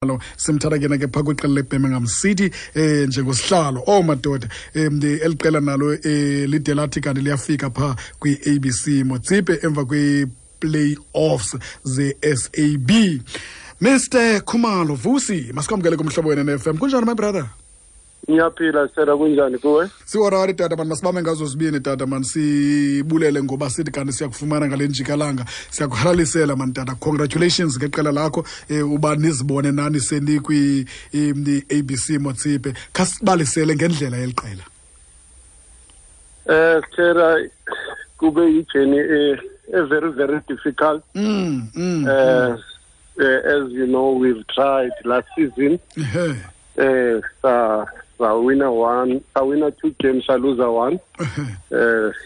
Lo simthatha ke ke phaa kwiqela leBirmingham City njengosihlalo. Oh madoda, eli qela nalo lide lathi kanti liyafika phaa kwi-ABC Motsepe emva kwi-playoffs ze-SAB. Mr Khumalo Vusi, masikwamkele kumhlobo wena ne-FM. Kunjani, my brother? Ngiyaphila sera, kunjani kuwe? Siworari tata mani, masibambe ngazo zibini tata mani, sibulele ngoba sithi kanti siyakufumana ngale njikalanga. Siyakuhalalisela mani tata, congratulations ngeqela lakho, uba nizibone nani senikwi-ABC Motsepe. Khasibalisele ngendlela yeli qela. Sera, kube yi-journey e very very difficult. As you know, we've tried last season. Sa wina one, sa wina two games, sa lose one.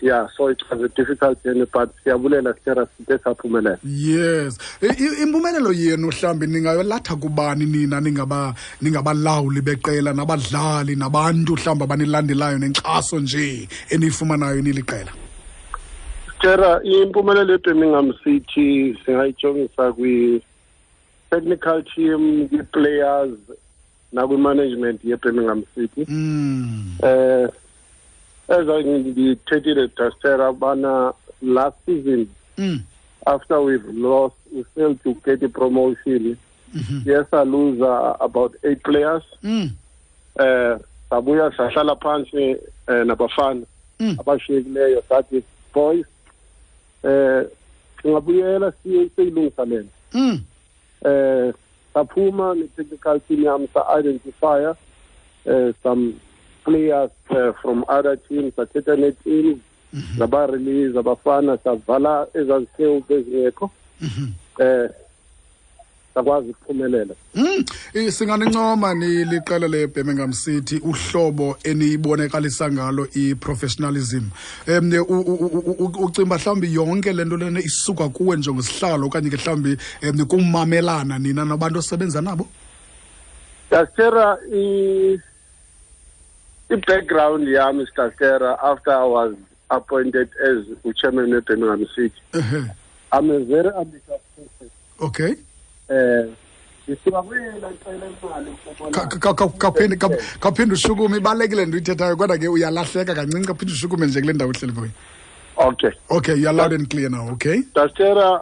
Yeah, so it was a difficult journey, but siyabulela sera, side saphumelela. Yes. Impumelelo yenu mhlawumbi ningayolatha kubani nina ningabalawuli beqela nabadlali nabantu mhlawumbi abanilandelayo nenkxaso nje eniyifumanayo niliqela? Sera, impumelelo yeBirmingham City singayijongisa kwi-technical team, kwi-players nakwi-management yeBirmingham City. As ngithethile Dastera bana last season, after we've lost, we failed to get a promotion. Yes, I lose about 8 players. Sabuya sahlala phansi nabafana abashiyekileyo, sathi boys, singabuyela siyilungisa lento. Saphuma ne-technical team yami, sa-identify some players from other teams, sathetha ne-teams, zaba-release abafana, savala ezazikhewu bezingekho, sakwazi ukuphumelela. Singanincoma niliqela leBirmingham City uhlobo eniyibonakalisa ngalo i-professionalism. Ucimba mhlawumbi yonke le nto lena isuka kuwe njengosihlalo okanye ke mhlawumbi kumamelana nina nabantu osebenza nabo? Dastera, i-background yami, Dastera, after I was appointed as chairman of Birmingham City, I'm a very ambitious person. Ndisuka kwela qela imali. Khawuphinde ushukume, ibalulekile nto uyithethayo, kodwa ke uyalahleka kancinci. Khawuphinde ushukume nje kule ndawo uhleli kuyo. Okay. Okay, you are loud and clear now, okay? Dastera,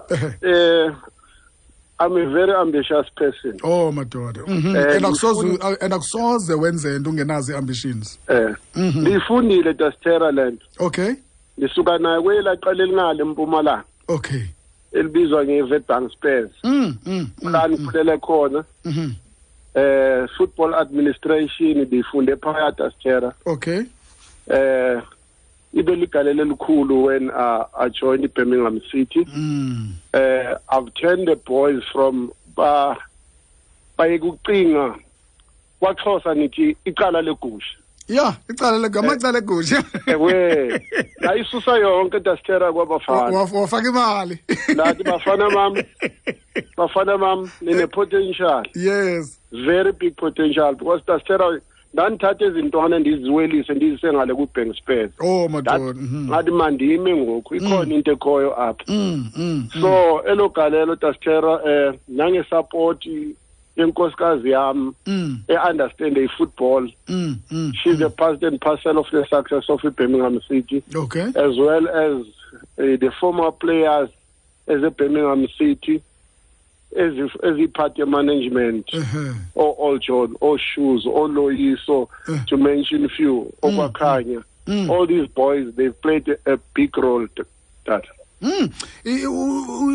I'm a very ambitious person. Oh madoda. And akusoze wenze into ungenazo i-ambitions. Ndiyifundile Dastera le nto. Ndisuka nayo kwelaa qela elingale eMpumalanga. Elibizwa nge-Witbank Spurs. La ndikhulele khona. Football administration ndiyifunde phaya, Dastera. Ibe ligalelo elikhulu when I joined Birmingham City. I've turned the boys from ba baye kucinga, kwaXhosa nithi icala legusha. Yeah, icala amacala egusha. Ewe, layisusa yonke Dastera kwabafana. Wafaka imali. Lathi bafana bam, bafana bam, nine potential. Very big potential, because Dastera, ndandithatha ezintwana ndiziwelise ndizise ngale ku-Bank Spurs. Oh madoda. Ngathi mandime ngoku, ikhona into ekhoyo apha. So elo galelo Dastera, nange-support yenkosikazi yam e-understand i-football. She's a part and parcel of the success of Birmingham City. As well as the former players as a Birmingham City, as a part of management, or All John, or Shoes, or Loyiso, to mention a few, or Wakanya. All these boys, they've played a big role to that.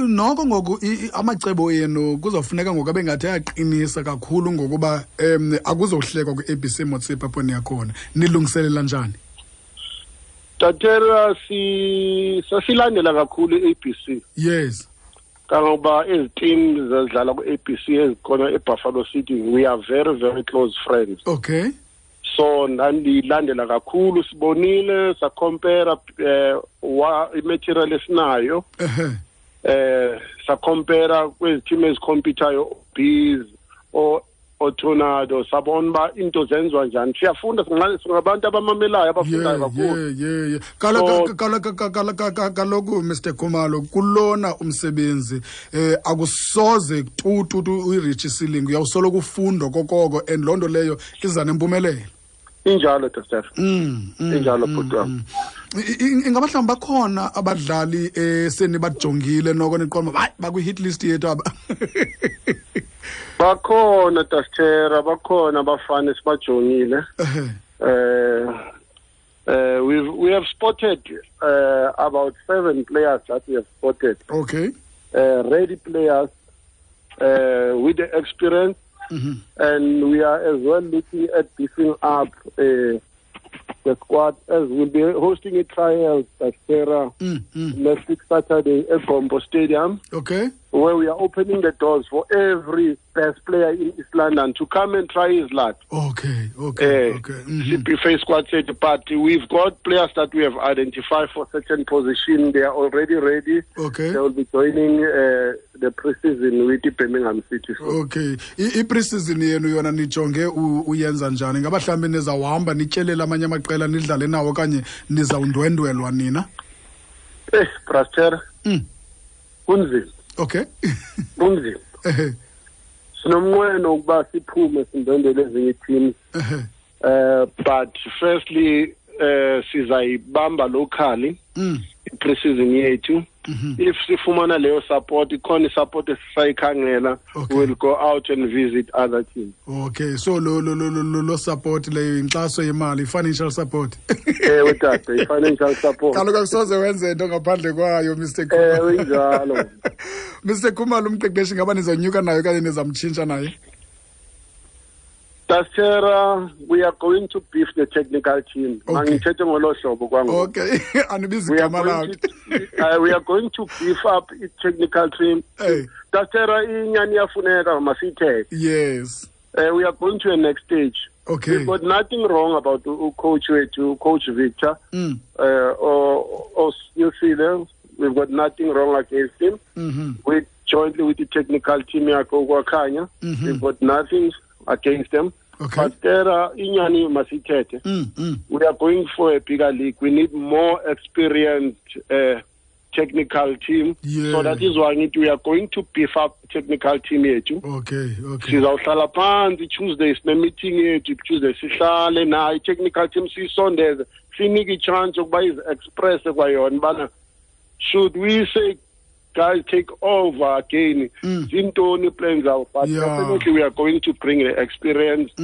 Noko ngoku amacebo enu kuzofuneka ngoku abe ngathi ayaqinisa kakhulu ngokuba akuzohlekwa kwi-ABC Motsepe apho niyakhona. Nilungiselela njani? Tatera, sasilandela kakhulu i-ABC. Kangoba ezi teams ezidlala ku-ABC ezikhona eBuffalo City, we are very very close friends. So ndandilandela kakhulu, sibonile, sa-compare wa i-material esinayo. Sa-compare kwezi team ezi-compete-ayo, Bees or Tornado, sabona uba into zenziwa njani. Siyafunda, singabantu abamamelayo, abafundayo kakhulu. Yeah. Kaloku Mr Khumalo, kulona umsebenzi akusoze tu uyi-reach ceiling, uyawusoloko ufunda kokoko, and loo nto leyo iza nempumelelo. Injalo, Dr. Injalo, bhuti wam. Ingaba mhlawumbi bakhona abadlali esenibajongile noko niqonda hayi bakwi-hit list yethu aba? Bakhona, Dastera, bakhona abafana esibajongile. We have spotted about 7 players that we have spotted. Okay. Ready players with the experience. Mm-hmm. And we are as well looking at beefing up the squad, as we'll be hosting a trial at Sarah next week Saturday at Gombo Stadium. Okay. Where we are opening the doors for every best player in East London to come and try his luck. Okay. Mm-hmm. CPFA squad said, but we've got players that we have identified for certain position. They are already ready. Okay. They will be joining the pre-season with the Birmingham City. Okay. I-pre-season yenu yona nijonge uyenza njani? Ngaba mhlawumbi nizawuhamba nityelele amanye amaqela nidlale nawo okanye nizawundwendwelwa nina? Braster. Kunzima. Okay. Kunzima. Sinomnqweno ukuba siphume sindwendwele ezinye teams. But firstly sizayibamba locally i-pre-season yethu. If sifumana leyo support, ikhona support esisayikhangela, we'll go out and visit other teams. Okay, so lo support leyo inkxaso yemali, financial support. Ewe tata, i-financial support. Kaloku akusoze wenze into ngaphandle kwayo, Mr. Khumalo. Ewe injalo. Mr. Khumalo, umqeqeshi ngaba nizonyuka naye okanye nizamtshintsha naye? Dastera, we are going to beef the technical team. Okay. Okay. We are going to beef up the technical team. Hey. Dastera, inyani iyafuneka masithethe. Yes. We are going to the next stage. Okay. We've got nothing wrong about coach wethu, Coach Victor, or Nusile. We've got nothing wrong against him. Mm-hmm. We jointly with the technical team yakho, we've got nothing against them. Okay. But there are inyani masithethe. We are going for a bigger league. We need more experienced technical team. Yeah. So that is why we are going to beef up technical team yethu. Okay. Sizawuhlala phansi Tuesday sine meeting yethu, Tuesday sihlale nayo technical team siyisondeze, sinike i-chance yokuba izi-express kwayona bana should we say guys take over again. Zintoni plans out, but definitely we are going to bring an experienced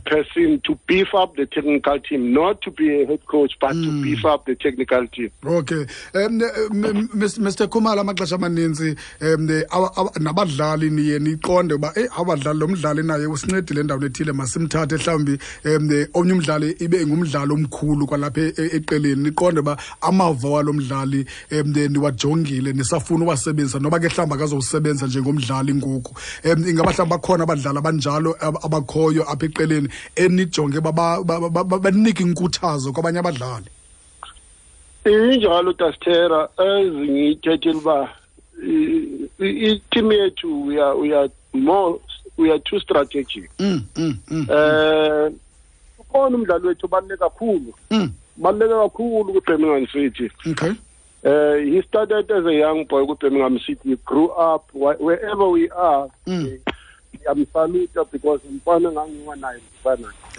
person to beef up the technical team, not to be a head coach, but to beef up the technical team. Okay. Mr. Khumalo, amaxesha amaninzi nabadlali niye niqonde uba abadlali lo mdlali naye usincedile endaweni ethile, masimthathe mhlawumbi omnye umdlali ibe ngumdlali omkhulu kwalapha eqeleni, niqonde uba amava walo mdlali niwajongile nisafuna uwasebenzisa noba ke mhlawumbi akazowusebenza njengomdlali ngoku. Ingaba mhlawumbi bakhona abadlali abanjalo abakhoyo apha eqeleni enijonge banike inkuthazo kwabanye abadlali? Injalo Dastera, ezingiyithethile uba i-team yethu we are too strategic. Ukhona umdlali wethu obaluleke kakhulu. Baluleke kakhulu ku-Birmingham City. Okay. He started as a young boy with Birmingham City. He grew up wherever we are. I'm saluted because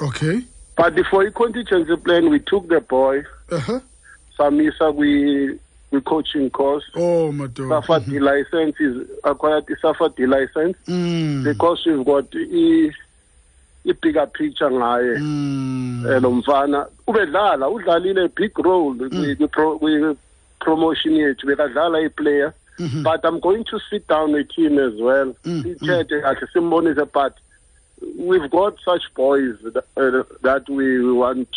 Okay. But before he contingency plan, we took the boy. Samisa, we coaching course. Oh my God. Safa D license is acquired the Safa D license because we've got a bigger picture ngaye. Lo mfana ubedlala udlalile a big role we promotion yethu bekadlala i-player. But I'm going to sit down with him as well. But we've got such boys that we want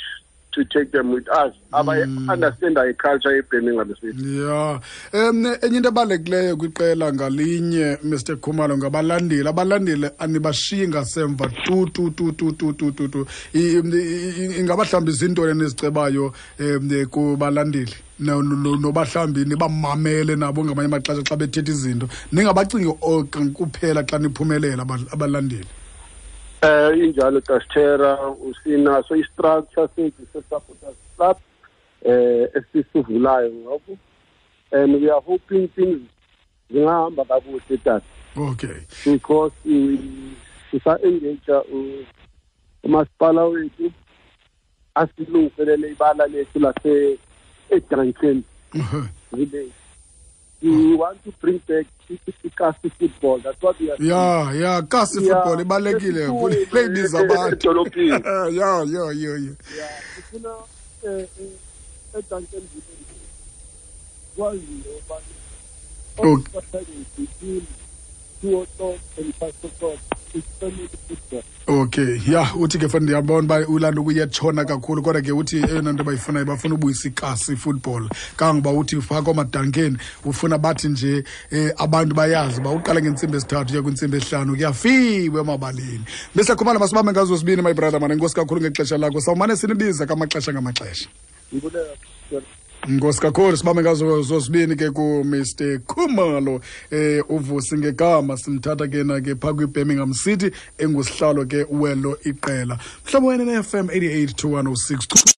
to take them with us. I understand our culture eBirmingham City. Yeah. Enye into ebalulekileyo kwiqela ngalinye, Mr. Khumalo, ngabalandeli. Abalandeli anibashiyi ngasemva tu tu tu tu tu tu tu tu. Ingaba mhlawumbi zintoni enizicebayo kubalandeli? Noba mhlawumbi nibamamele nabo ngamanye amaxesha xa bethetha izinto. Ningabacingi kuphela xa niphumelela abalandeli. Injalo Tastera, usinaso i-structure sethu se-supporters club esisivulayo ngoku, and we are hoping things zingahamba kakuhle, tata. Because sisa-engage umasipala wethu asilungiselele ibala lethu lase eDuncan Village. We want to bring back ikasi football. That's what we are Yeah, kasi football ibalulekile kule ibiza abantu edolophini. Yeah. Yeah, sifuna eDuncan Village kwaziwe uba Saturday between 2 o'clock and 5 o'clock it's family football. Okay, ya, uthi ke fana ndiyabona uba ulanda ukuyetshona kakhulu, kodwa ke uthi eyona nto bayifunayo, bafuna ubuyisa ikasi football, kangoba uthi phaa kwaMadankeni ufuna bathi nje abantu bayazi uba uqala ngentsimbi 3 uya kwintsimbi 5 kuyafiwe emabaleni. Mr Khumalo, masibambe ngazo sibini, my brother man. Enkosi kakhulu ngexesha lakho. Sawumane sinibiza kamaxesha ngamaxesha. Ndibulela. Nkosi kakhulu. Sibambe ngazo zozibini ke ku-Mr Khumalo, uVusi ngegama, simthatha ke na ke phaa kwi-Birmingham City, engusihlalo ke welo iqela. Mhlobo wena ne-FM 88 to 106.